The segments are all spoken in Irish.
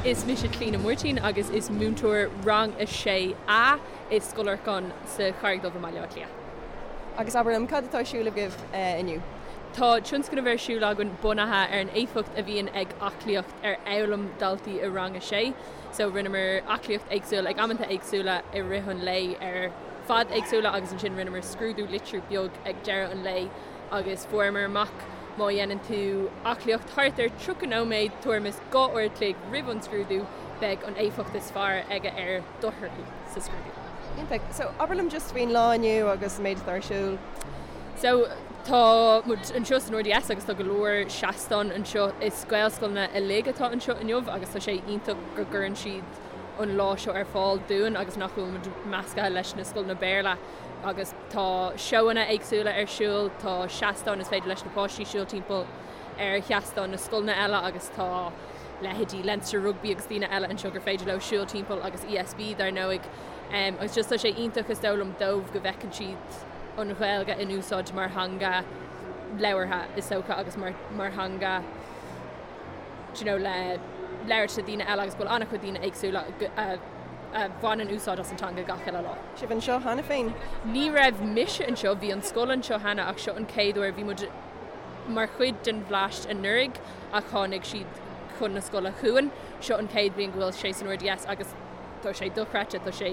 Is mise Clíona Máirtín agus is múinteoir Rang 6A i Scoil Lorcáin sa Charraig Dhubh i mBaile Átha Cliath. Agus abair liom, cad atá ar siúl agaibh inniu? Tá tionscnamh ar siúl againn bunaithe ar an éifeacht a bhíonn ag aclaíocht ar fhoghlaim daltaí i Rang 6. So rinneamar aclaíocht éagsúil ag amanta éagsúla i rith an lae ar fad éagsúla agus ansin rinneamar scrúdú litriú beag ag deireadh an lae agus fuaireamar amach má dhéanann tú aclaíocht thart ar 30 nóiméad, tuairim is 2 uair a chloig roimh an scrúdú, beidh an éifeacht is fearr aige ar do thorthaí sa scrúdú. Iontach. So, abair liom just faoin lá inniu agus an méid atá ar siúl. So, tá muid anseo san RDS agus tá go leor seastán anseo. Is Gaelscoileanna uilig atá anseo inniu agus tá sé iontach go gcuireann siad an lá seo ar fáil dúinn agus nach bhfuil muid measctha leis na scoileanna Béarla agus Tá seóanna éagsúla ar siúl, tá seastáin is féidir leis na páistí siúl timpeall ar sheastáin na scoileanna eile agus tá leithéidí Leinster Rugby agus daoine eile anseo gur féidir leo siúl timpeall agus ESB dar ndóigh. Agus just tá sé iontach is dóigh liom dóibh go bhfeiceann siad an Ghaeilge in úsáid mar theanga labhartha is dócha agus mar mar theanga do you know le labhairt le daoine eile agus go bhfuil an-chuid daoine éagsúla a a bhaineann úsáid as an teanga gach uile lá. Sibh anseo cheana féin? Ní raibh mise anseo, bhí an scoil anseo cheana ach seo an chéad uair, bhí muid mar chuid den Bhleaist anuraidh ach tháinig siad chun na scoile chugainn. Seo an chéad bhliain go bhfuil sé san RDS agus tá sé dochreidte, tá sé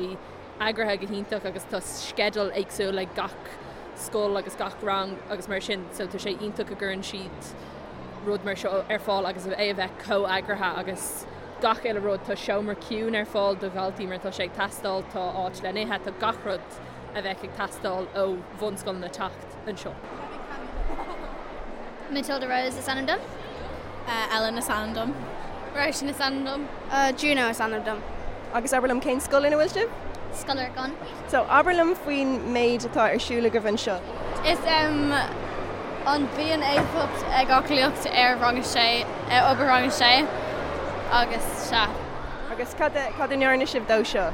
eagraithe go hiontach agus tá sceideal éagsúil ag gach scoil agus gach rang agus mar sin so tá sé iontach go gcuireann siad rud mar seo ar fáil agus é a bheith chomh eagraithe agus gach uile rud. Tá seomra ciúin ar fáil do dhaltaí mar tá sé ag teastáil, tá áit le n-ithe, tá gach rud a bheadh ag teastáil ó bhunscoileanna teacht anseo. Matilda Rose is ainm dom. Ellen is ainm dom. Róisín is ainm dom. Juno is ainm dom. Agus abair liom cén scoil ina bhfuil sibh? Scoil Lorcáin. So, abair liom faoin méid atá ar siúl agaibh anseo. Is em an bíonn éifeacht ag aclaíocht ar rang a sé, ar obair rang a sé agus sea. Agus cad a, cad a ndearna sibh dó seo?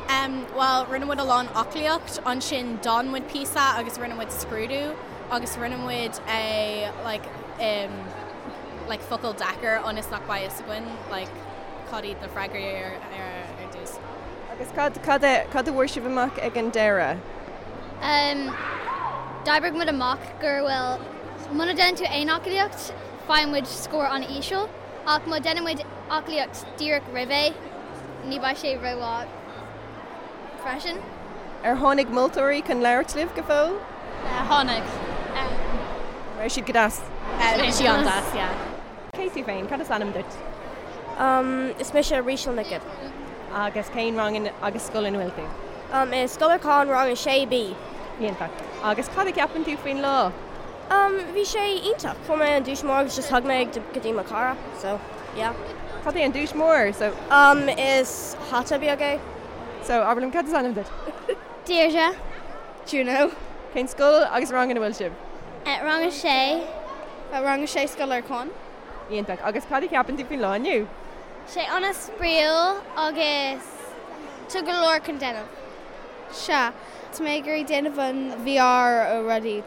Em, bhuel, rinne muid a lán aclaíocht, ansin d'fhan muid píosa agus rinne muid scrúdú agus rinne muid é like em like focal deacair ionas nach mbeidh fhios againn like cad iad na freagraí ar ar ar dtús. Agus cad, cad a, cad a bhfuair sibh amach ag an deireadh? Em, d'oibrigh muid amach gur bhfuil, muna déanann tú aon aclaíocht, faigheann muid scór an-íseal, ach má déanann muid aclaíocht díreach roimh é, ní beidh sé rómhaith freisin. Ar tháinig moltóirí chun labhairt libh go fóill? Tháinig. An raibh siad go deas? Bhí siad an-deas, yeah. Cé tú féin? Cad is ainm duit? Is mise Ríseal Nic Gibb. Agus cén rang agus scoil ina bhfuil tú? I Scoil Lorcáin, rang 6B. Iontach. Agus cad a cheapann tú faoin lá? Bhí sé iontach. Fuair mé an duais mór agus just thug mé go dtí mo chara. So, yeah. Cad é an duais mór? So. Is hata beag é. So, abair liom, cad is ainm duit? Deirdre. Juno. Cén scoil agus rang ina bhfuil sibh? Rang 6. Rang 6 Scoil Lorcáin. Iontach. Agus cad a cheapann tú faoin lá inniu? Sé an-spraíúil agus tá go leor chun déanamh. Sea. Tá mé ag iarraidh déanamh an VR ó rudaí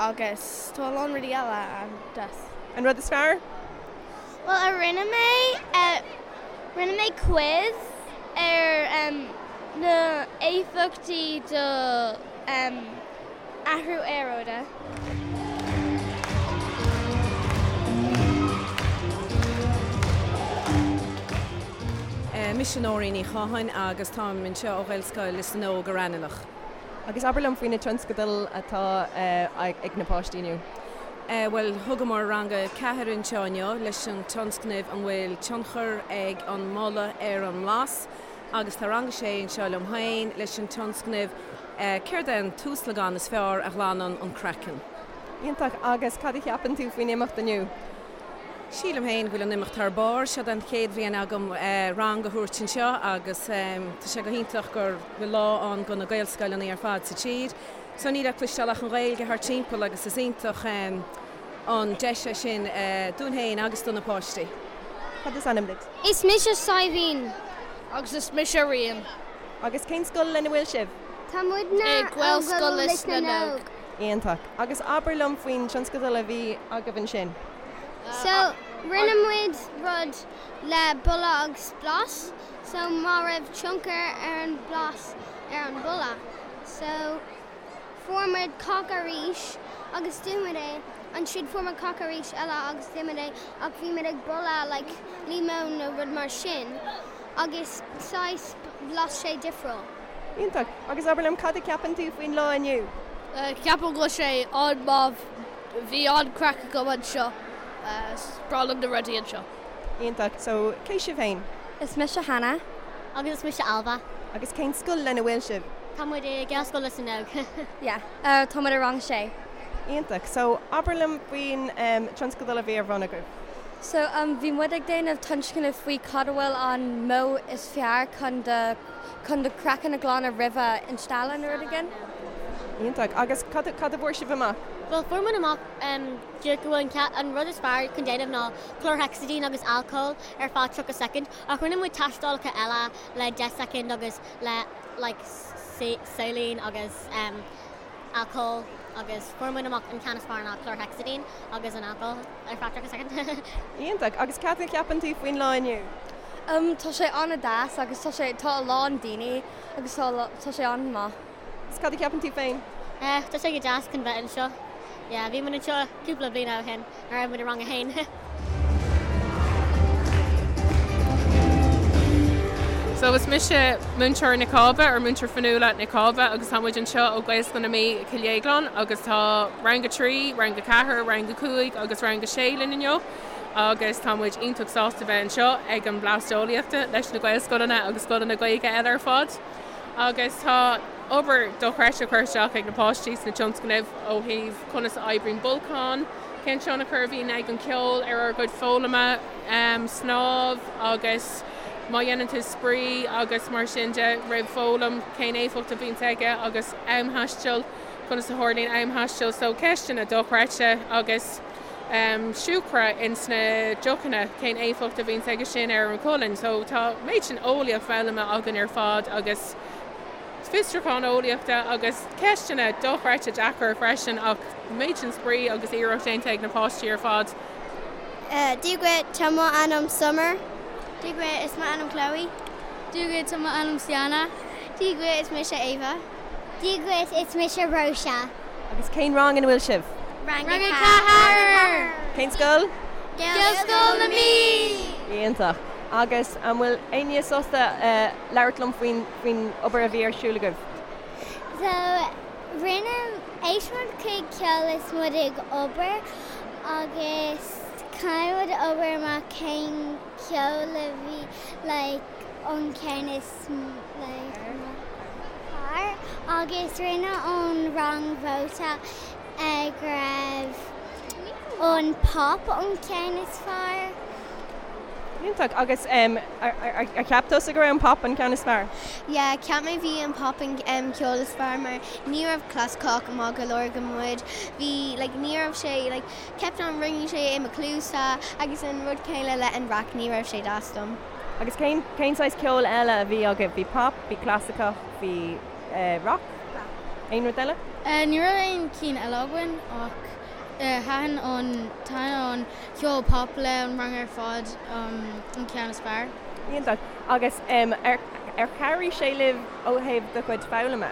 agus tá a lán rudaí eile an-deas. An rud is fearr? Bhuel a rinne mé, rinne mé quiz ar na éifeachtaí do athrú aeráide. Mise Nóirín Ní Chatháin agus táim anseo ó Ghaelscoil Lios na nÓg i Raghnallach. Agus abair liom faoi na tionscadail atá ag na páistí inniu. Bhuel, thugamar rang a 4 anseo inniu leis an tionscnamh An bhfuil tionchar ag an mboladh ar an mblas? agus tá rang a 6 anseo liom féin leis an tionscnamh Céard é an tuaslagán is fearr a ghlanann an craiceann? Iontach, agus cad a cheapann tú faoin imeacht inniu? Sílim féin go bhfuil an imeacht thar barr. Seo an chéad bhliain agam rang a thabhairt anseo agus tá sé go hiontach go bhfuil lá ann do na Gaelscoileanna ar fad sa tír. So níl le cloisteáil ach an Ghaeilge thart timpeall agus is iontach an deis é sin dúinn féin agus do na páistí. Cad is ainm duit? Is mise Saidhbhín. Agus is mise Rían. Agus cén scoil lena bhfuil sibh? Tá muidne I Gaelscoil Lios na nÓg. Iontach. Agus abair liom faoin tionscadal a bhí agaibh ansin. So. Rinne muid rud le boladh agus blas so má raibh tionchar ar an blas ar an boladh. So fuair muid coke arís agus d'ith muid é, ansin fuair muid coke arís eile agus d'ith muid é ach bhí muid ag boladh like líomón nó rud mar sin agus saghas bhlas sé difriúil. Iontach. Agus abair liom, cad a cheapann tú faoin lá inniu? Ceapaim go bhfuil sé an-mhaith. Bhí an-craic agam anseo. Is breá liom na rudaí anseo. Iontach. So, cé sibh féin? Is mise Hannah. Agus is mise Ailbhe. Agus cén scoil lena bhfuil sibh? Tá muid i Gaelscoil Lios na nÓg. Yeah. Tá muid i rang a sé. Iontach. So, abair liom faoin tionscadal a bhí ar bun agaibh. So, bhí muid ag déanamh tionscnamh faoi cad a bhfuil an modh is fearr chun do chun do chraiceann a ghlanadh roimhe instealladh nó rud éigin. Iontach. Agus cad cad a bhfuair sibh amach? Bhuel, fuair muid amach go bhfuil an rud is fearr chun déanamh ná chlorhexidine agus alcól ar feadh 30 soicind, ach rinne muid tástálacha eile le 10 soicind agus le like saline agus alcól agus fuair muid amach an ceann is fearr ná chlorhexidine agus an alcól ar feadh 30 soicind. Iontach. Agus cad a cheapann tú faoin lá inniu? Tá sé an-deas agus tá sé tá a lán daoine agus tá tá sé an-maith. Agus cad a cheapann tú féin? Tá sé go deas chun bheith anseo. Yeah, bhí muid anseo cúpla bliain ó shin nuair a raibh muid i rang a haon. So is mise Múinteoir Nic Cába or Múinteoir Fionnuala Nic Cába agus tá muid anseo ó Gaelscoil na Mí i Cill Dhéagláin agus tá Rang 3, Rang 4, Rang 5 agus Rang 6 linn inniu agus tá muid iontach sásta bheith anseo ag an Blast Eolaíochta leis na Gaelscoileanna agus scoileanna Gaeilge eile ar fad. Agus tá obair dochreidte curtha isteach ag na páistí sna tionscnaimh ó thaobh conas a oibríonn bolcán, cén tionchar a bhíonn ag an ceol ar ár gcuid foghlama, snámh agus má dhéanann tú spraoi agus mar sin de roimh foghlaim, cén éifeacht a bhíonns aige agus amthaisteal, conas a tharlaíonn amthaisteal. So ceisteanna dochreidte agus siúcra ins na deochanna, cén éifeacht a bhíonns aige sin ar an cholainn. So tá méid sin eolaíocht foghlamtha againn ar fad agus fiosrúchán eolaíochta agus ceisteanna dochreidte deacair freisin ach méid sin spraoi agus iarracht déanta ag na páistí ar fad. Dia dhuit, tá mo ainm Summer. Dia dhuit, is mo ainm Chloe. Dia dhuit, tá mo ainm Sienna. Dia dhuit, is mise Ava. Dia dhuit, is mise Róise. Agus cén rang ina bhfuil sibh? Rang a 4! Cén scoil? Gaelscoil na Mí! Iontach. Agus an bhfuil éinne sásta labhairt liom faoin faoin obair a bhí ar siúl agaibh? So, rinne, éist muid chuig ceol is muid ag obair agus caithfidh muid obair amach cén ceol a bhí like an ceann is like fearr agus rinne an rang vóta go raibh an pop an ceann is fearr. Iontach. Agus ar cheap tusa go raibh an pop an ceann is fearr? Yeah, cheap mé bhí an pop an ceol is fearr mar ní raibh clasaiceach maith go leor go muid. Bhí like ní raibh sé like kept on ringing sé i mo cluasa agus an rud céanna le an rac ní raibh sé deas dom. Agus cén cén saghas ceoil eile a bhí agaibh? Bhí pop, bhí clasaiceach, bhí rock? Aon rud eile? Ní raibh aon cinn eile againn ach thaitin an thaitin an ceol pop le an rang ar fad an ceann is fearr. Iontach. Agus ar ar chabhraigh sé libh ó thaobh do chuid foghlama?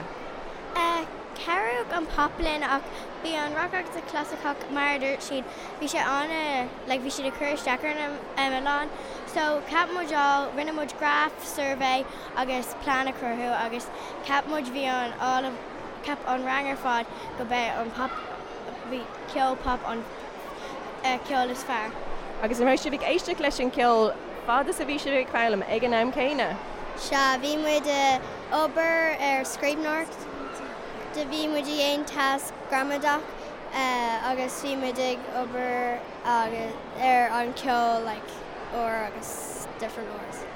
Chabhraigh an pop linn ach bhí an rock agus an clasaiceach mar a dúirt siad bhí sé an like bhí siad ag cur isteach ar a lán so cheap muid all rinne muid graf survey agus plean a chruthú agus cheap muid bhí an all of cheap an rang ar fad go b'é an pop bhí ceol pop an ceol is fearr. Agus an raibh sibh ag éisteacht leis an ceol fad is a bhí sibh ag foghlaim ag an am céanna? Sea, bhí muid ag obair ar scríbhneoireacht, do bhí muid ag déanamh tasc gramadach agus bhí muid ag obair ar an ceol like uair agus different uair.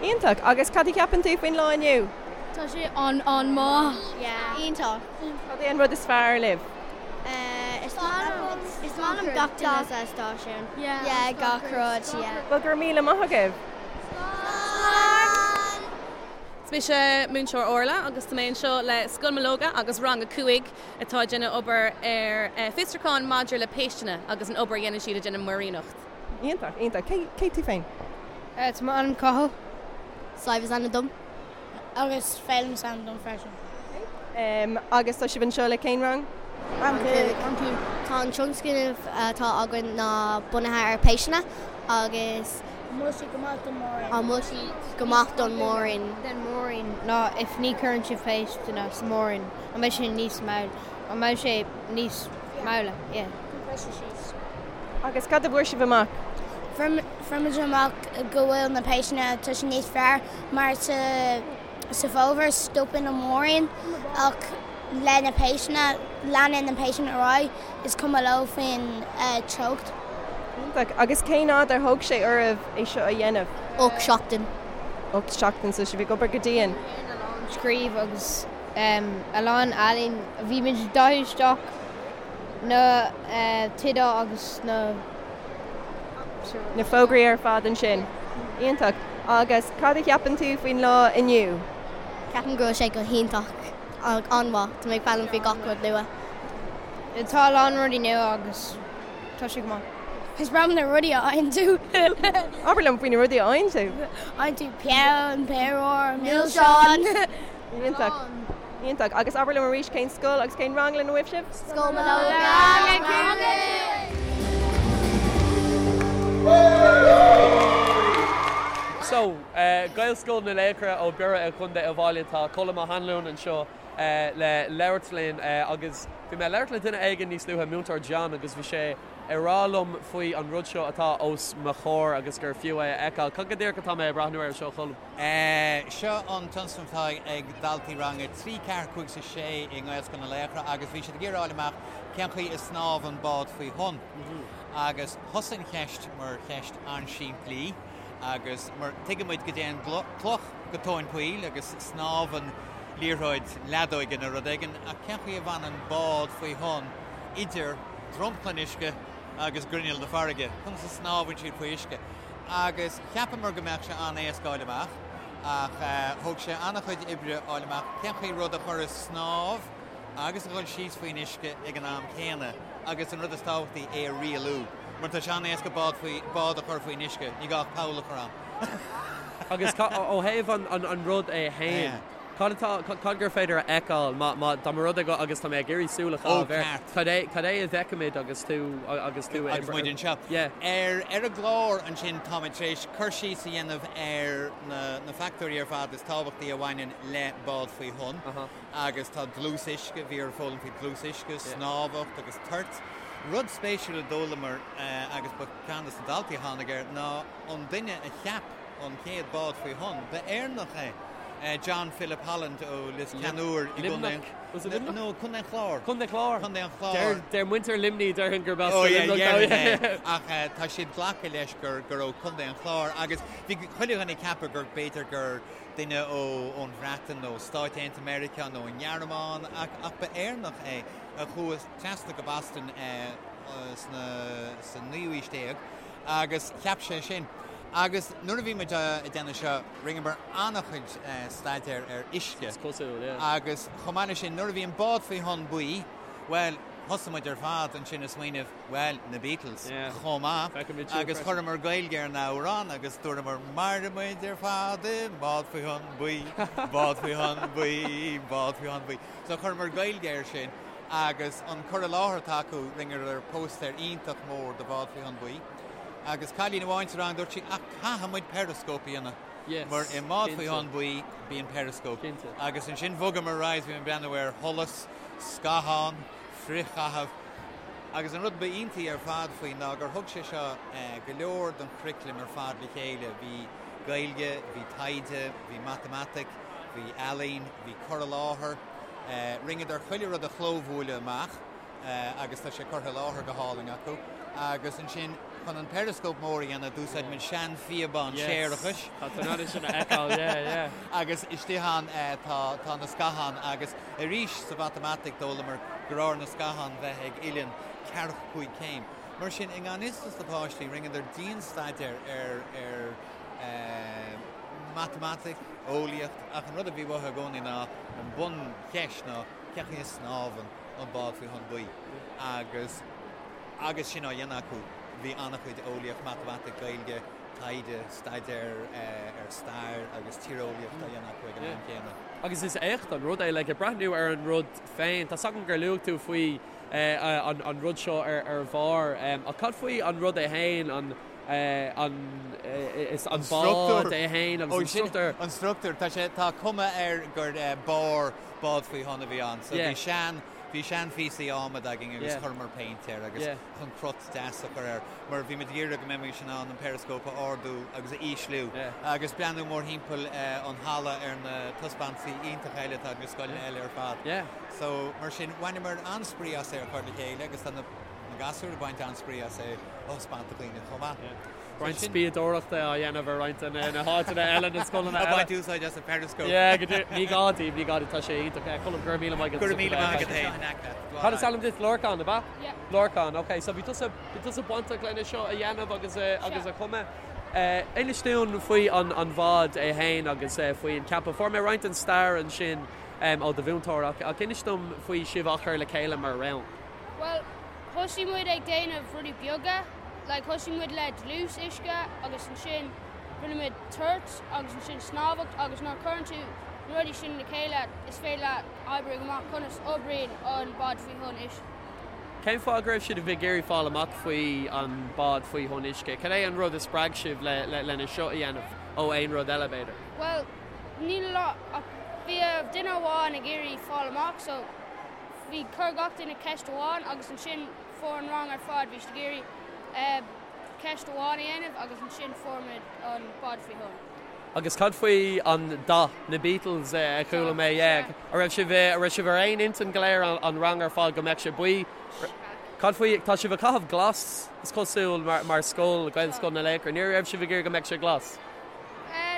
Iontach! Agus cad a cheapann tú faoin lá inniu? Tá sé an-an-maith! Yeah. Iontach! Cad é an rud is fearr libh? Is maith liom gach duine sa stáisiún. Yeah, gach rud, yeah. Bhuel, go raibh míle maith agaibh! Slán! Is mise Múinteoir Orla agus tá mé anseo le Scoil Mológa agus Rang 5 atá ag déanamh obair ar fiosrúchán maidir le péisteanna agus an obair a dhéanann siad ag déanamh muiríneacht. Iontach, iontach. Cé, cé tú féin? Tá m'ainm Cathal. Sadhbh is ainm dom. Agus Féilim is ainm dom freisin. Agus tá sibh anseo le cén rang? Rang 5. Rang 5. Tá an tionscnamh atá againn ná bunaithe ar péisteanna agus. An bhfuil siad go maith don múirín? An bhfuil siad go maith don múirín? Den múirín ná if ní cuireann sibh péisteanna sa múirín an mbeidh sé níos mall an mbeidh sé níos maille? Yeah. Agus cad a bhfuair sibh amach? Fuair muid amach go bhfuil na péisteanna tá sé níos fearr mar sa sa bhfómhar stopann an múirín ach le na péisteanna leanann na péisteanna ar aghaidh is cuma leo faoin teocht. Iontach. Agus cén fhad ar thóg sé oraibh é seo a dhéanamh? 8 seachtain. 8 seachtain, so sibh ag obair go dian. A lán scríobh agus a lán ealaín. Bhí muid ag dathú isteach na tithe agus na. Na fógraí ar fad ansin. Iontach. Agus cad a cheapann tú faoin lá inniu? Ceapaim go bhfuil sé go hiontach. An-mhaith. Tá mé ag foghlaim faoi gach rud nua. Tá a lán rudaí nua agus tá sé go maith. Is breá liom na rudaí a fhaigheann tú. Abair liom faoi na rudaí a fhaigheann tú. Faigheann tú peann, péire, milseáin. Iontach. Iontach. Agus abair liom arís cén scoil agus cén rang lena bhfuil sibh? Scoil Mológa. Rang 5. So, Gaelscoil na Laochra ó Biorra i gContae Uíbh Fhailí, tá Colm Ó hAnluain anseo le labhairt linn agus bhí mé ag labhairt le duine éigin níos luaithe, Múinteoir John, agus bhí sé ag rá liom faoi an rud seo atá os mo chomhair agus gur fiú é a fheiceáil. Cad go díreach atá mé ag breathnú air seo, Cholm? Seo an tionscnamh atá ag daltaí rang 3, 4, 5 is 6 i nGaelscoil na Laochra agus bhí siad ag iarraidh a fháil amach cén chaoi a snámhann bád faoi thonn. Agus thosaigh an cheist mar cheist an-simplí agus mar tuigeann muid go dtéann cloch go tóin poill agus snámhann liathróid leadóige nó rud éigin ach cén chaoi a bhfanann bád faoi thonn idir dromchla an uisce agus grinneall na farraige? Conas a snámhann siad faoi uisce? Agus cheapamar go mbeadh sé an-éasca fháil amach, ach thóg sé an-chuid oibre fháil amach cén chaoi rud a chur ag snámh agus a dhul síos faoin uisce ag an am céanna, agus an rud is tábhachtaí, é a rialú. Mar tá sé an-éasca bád faoi, bád a chur faoin uisce, ní gá ach poll a chur ann. Agus ó thaobh an rud é fhéin, Cad atá, cad gur féidir a fheiceáil má, má, dá mba rud é go, agus tá mé ag iarraidh súil a chaitheamh air, cad é, cad é a bhfeicimid agus tú, agus tú Agus muid anseo. Yeah. Ar, ar an gclár ansin táimid tar éis cur síos a dhéanamh ar na, na factóirí ar fad is tábhachtaí a bhaineann le bád faoi thonn. Agus tá dlús uisce, bhí orainn foghlaim faoi dlús uisce, snámhacht agus toirt. Rud spéisiúil a d'fhoghlamar agus ba ceann de na daltaí a tháinig air ná an duine a cheap an chéad bád faoi thonn, ba Éireannach é. John Philip Holland ó Lios Ceannúir i gContae an No, Contae an Chláir. Contae an Chláir. Contae an Chláir. Deir muintir Luimnigh, déarfainn gurb as do Luimneach dó. Ach tá siad glactha leis gur gur ó Contae an Chláir agus bhí chuile dhuine ag ceapadh gur b'fhéidir gur duine ó ón Bhreatain nó Stáit Aontaithe Meiriceá nó an nGearmáin ach ach ba Éireannach é a chuaigh trasna go Boston sna sa naoú aois déag agus cheap sé sin. Agus nuair a bhí muid ag déanamh seo, rinneamar an-chuid staidéir ar uisce. Is cosúil, yeah. Agus chomh maith leis sin, nuair a bhí an bád faoi thonn buí, bhuel, thosaigh muid ar fad ansin ag smaoineamh, bhuel, na Beatles chomh maith. Feicimid siad Agus freisin. chuireamar Gaeilge ar an amhrán agus dúramar, Mairfidh muid ar fad i mbád faoi thonn buí, bád faoi thonn buí, bád faoi thonn buí. So chuireamar Gaeilge air sin agus an cur i láthair atá acu, rinneadar póstaer iontach mór de bhád faoi thonn buí. Agus cailín amháin sa rang, dúirt sí, ach caithfidh muid periscope a dhéanamh. Yes, Mar i mbád faoi cinnte. thonn buí, bíonn periscope. Cinnte. Agus ansin bhogamar ar aghaidh, bhí muid ag breathnú ar sholas, scathán, frithchaitheamh. Agus an rud ba iontaí ar fad faoi ná gur thug sé seo go leor den churaclam ar fad le chéile. Bhí Gaeilge, bhí taighde, bhí matamaitic, bhí ealaín, bhí cur i láthair. Rinneadar chuile rud a chlóbhuaileadh amach. agus tá sé curtha i láthair go hálainn acu. Agus ansin, chun an periscope mór a dhéanamh, d'úsáid muid seanphíobán séarachais. Tá tú in ann é sin a fheiceáil, yeah, yeah. Agus istigh ann tá, tá na scatháin agus arís sa mhatamaitic d'fhoghlamar gur chóir na scatháin bheith ag uillinn ceathracha cúig céim. Mar sin, i ngan fhios dos na páistí, rinneadar dian-staidéar ar, ar matamaitic, eolaíocht, ach an rud a bhí uathu i gcónaí ná, an buncheist ná, cén chaoi a snámhann an bád faoi thonn buí agus agus sin á dhéanamh acu. bhí an-chuid eolaíocht, matamaitic, Gaeilge, taighde, staidéar ar stair agus tíreolaíocht á dhéanamh acu ag an am céanna. Agus is éacht an rud é, like, ag breathnú ar an rud féin, tá 's agam gur luaigh tú faoi an rud seo ar bharr, ach cad faoi an rud é féin, an an is an bád é féin agus an struchtúr? An struchtúr, tá sé, tá cuma air gur barr bád faoi thonn a bhí ann, so bhí sean, bhí seanphíosaí adhmaid againn agus chuireamar péint air agus chun crot deas a chur air mar bhí muid ag iarraidh go mbeimis in ann an periscope a ardú agus a ísliú agus breathnú mórthimpeall an halla ar na taispeántaisí iontacha eile atá ag na scoileanna eile ar fad. So mar sin bhaineamar an-spraoi as é a chur le chéile agus tá na gasúir ag baint an-spraoi as é a thaispeáint do dhaoine chomh maith. Roinnt spiadóireachta á dhéanamh ar roinnt de na háiteanna eile, na scoileanna eile. Ag baint úsáid as an periscope. Yeah, go díreach. Ní gá daoibh, ní gá daoibh, tá sé iontach. Colm, go raibh míle maith agat. Go raibh míle maith agat féin. Cad is ainm duit? Lorcán, ab ea? Yeah. Lorcán, ok. So bhí tusa, bhí tusa bainteach lena seo a dhéanamh agus a, agus a chumadh. Inis dúinn faoi an, an bhád é féin agus faoi an ceapadh. Fuair mé roinnt den stair ansin ó do mhúinteoir ach, ach inis dom faoi sibh á chur le chéile mar rang. Bhuel, thosaigh muid ag déanamh rudaí beaga, like thosaigh muid le dlús uisce agus ansin rinne muid toirt agus ansin snámhacht agus nuair a chuireann tú na rudaí sin le chéile is féidir leat oibriú amach conas oibríonn an bád faoi thonn uisce. Cén fáth go raibh sibh ag iarraidh fáil amach faoi an bád faoi thonn uisce? Cad é an rud a spreag sibh le lena seo a dhéanamh ó aon rud eile b'fhéidir? Bhuel, níl a lot ach bhí duine amháin ag iarraidh fáil amach so Bhí, chuir gach duine ceist amháin agus ansin fuair an rang ar fad, bhí siad ag iarraidh ceist amháin a dhéanamh agus ansin fuair muid an bád faoi thonn. Agus cad faoi an dath, na Beatles a chuala mé, yeah. An raibh sibh, an raibh sibh ar aon intinn go léir, an rang ar fad, go mbeadh sé buí? Cad faoi, tá sibh ag caitheamh glas, is cosúil, mar, mar scoil, Gaelscoil na Laochra. Ní raibh sibh ag iarraidh go mbeadh sé glas?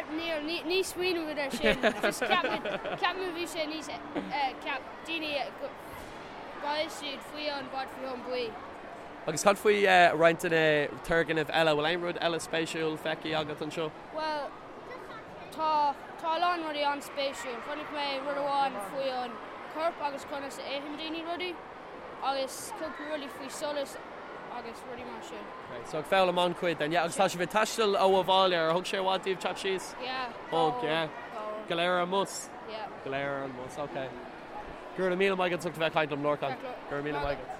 Níl, ní, ní smaoinigh muid ar sin. Just cheap muid, cheap muid bhí sé níos, cheap daoine go mbeidh siad faoi an bád faoi thonn buí. Agus cad faoi roinnt de na turgnaimh eile? Bhfuil aon rud eile spéisiúil feicthe agat anseo? Bhuel, tá, tá a lán rudaí an-spéisiúil. Chonaic mé rud amháin faoi an corp agus conas a itheann daoine rudaí agus cúpla rudaí faoi solas agus rudaí mar sin. Okay, so ag foghlaim an-chuid then, yeah. Agus tá sibh ag taisteal ó Uíbh Fhailí, ar thug sé i bhfad daoibh teacht síos? Yeah. Thug, yeah. Go léir ar an mbus? Yeah. Go léir ar an mbus, ok. Go raibh míle maith agat as ucht a bheith ag caint liom, Lorcán. Go raibh míle maith agat.